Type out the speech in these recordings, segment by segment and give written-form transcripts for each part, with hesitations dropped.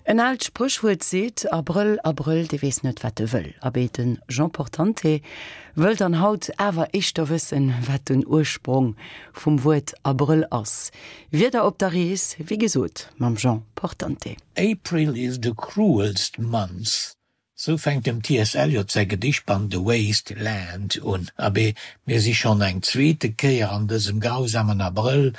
En aalt Spréchwuert seet, Abrëll, Abrëll, dee weess net, wat e wëll. Abee, de Jean Portante wëll dann haut awer éischter wëssen, wat den Ursprong vum Wuert Abrëll ass. Wieder op der Rees, wéi gesot, mam Jean Portante. April is the cruelst month, Sou fänkt dem TS. Eliot säi Gedichtband The Waste Land un. Abee, mir si schonn eng zweete Kéier an dësem grausamen Abrëll,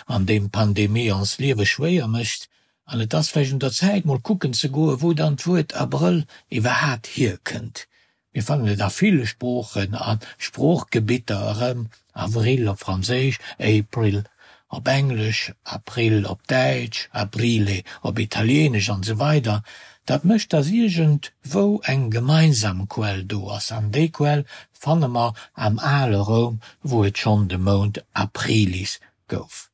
an deem d'Pandemie ons Liewe schwéier mécht. An et ass vläicht un der Zäit, mol kucken ze goen, wou dann d'Wuert Abrëll iwwerhaapt hierkënnt. Mir fannen et a ville Sproochen a Sproochgebitter erëm, Avril op Franséisch, April op Englesch, April op Däitsch, Aprile op Italieenesch an esou weider Dat mécht, datt iergendwou eng gemeinsam Quell do ass, an déi Quell fanne mer am ale Roum, wou et schonn de Mount Aprilis gouf.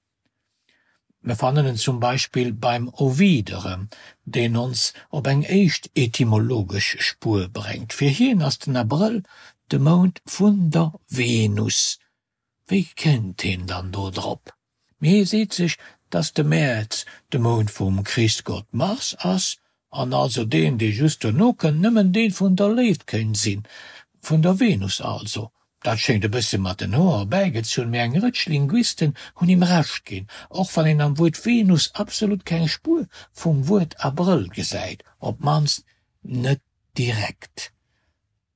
Mir fannen en zum Beispill beim Ovid erëm, deen ons op eng éischt etymologesch Spuer bréngt. Fir hien ass den Abrëll de Mount vun der Venus. Wéi kënnt hien dann do drop? Mee hie seet sech, dass de Mäerz de Mount vum Krichsgott Mars ass an also deen, dee just dono kënnt, nëmmen dee vun der Léift kéint sinn, vun der Venus also. Dat schéngt e bësse mat den Hoer erbäigezunn, mee eng Rëtsch Linguisten hunn him Recht ginn, och wann een am Wuert Venus absolut keng Spuer vum Wuert Abrëll gesäit, op d'mannst net direkt.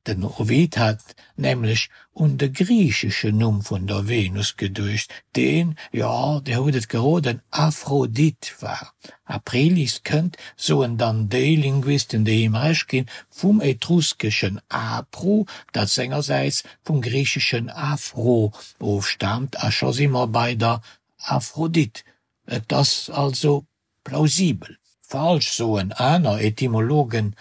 Den Ovid hat nämlech un de griicheschen Numm vun der Venus geduecht, deen, jo, Dir hutt et geroden, Aphrodite war. Aprilis kënnt, soen dann déi Linguisten, déi him Recht ginn, vum etruskeschen apru, dat sengersäits vum griicheschen aphro ofstaamt, a scho si mer bei der Aphrodite. Et ass also Plausibel. Falsch, soen aner Etymologen.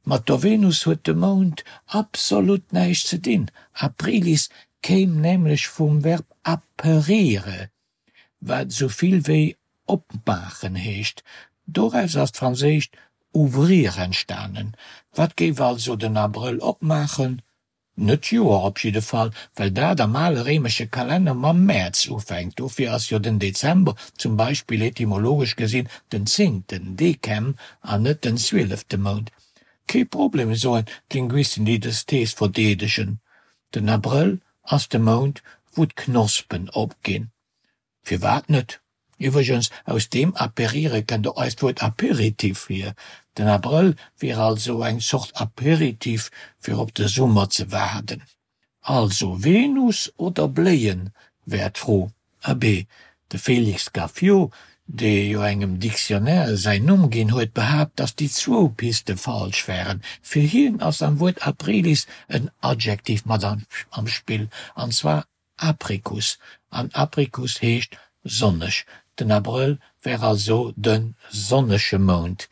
Mat der Venus huet de Mount absolut näischt ze dinn. Aprilis kéim nämlech vum Verb aperire, wat sou vill wéi opmaachen heescht. Doraus ass d'franséischt ouvrir entstanen. Wat géif also den Abrëll opmaachen? Net d'Joer op jidde Fall, well dat am ale réimesche Kalenner mam Mäerz ufänkt. Dofir ass jo den Dezember zum Beispill etymologesch gesinn den zéngten, Decem, an net den zwielefte Mount. Kee Problem, soen d'Linguisten, déi dës Thees verdeedegen, den Abrëll ass de Mount, wou d'Knospen opginn. Firwat net? Iwwregens, aus deem aperire kënnt och eist Wuert Aperitif hier. Den Abrëll wier also eng Zort Aperitif fir op de Summer ze waarden. Also Venus oder Bléien, wär d'Fro. Abee, de Félix Gaffiot, dee jo engem Dictionnaire säin Numm ginn huet, behaapt, datt déi zwou Piste falsch wären. Fir hien ass am Wuert aprilis en Adjektiv mat am Spill, an zwar Apricus, an Apricus heescht sonneg. Den Abrëll wär also de sonnege Mount.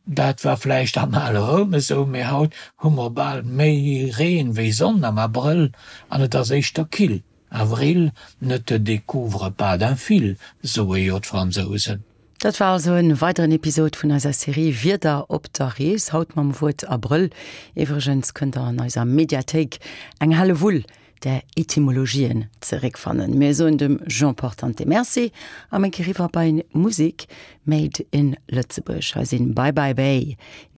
Dat war vläicht am ale Roum esou, mee haut hu mer bal méi Reen wéi Sonn am Abrëll an et ass éischter kill. Avril ne te découvre pas d'un fil, soe jo d'Fransousen. Dat war also en weideren Episod vun eiser Serie Wieder op der Rees, haut mam Wuert Abrëll. Iwwregens kënnt der an eiser Mediathéik eng Hellewull där Etymologien zeréckfannen. Mir soen dem Jean Portante Merci a ménke riwwer bei Musik made in Lëtzebuerg. Hei sinn Bye Bye Bay.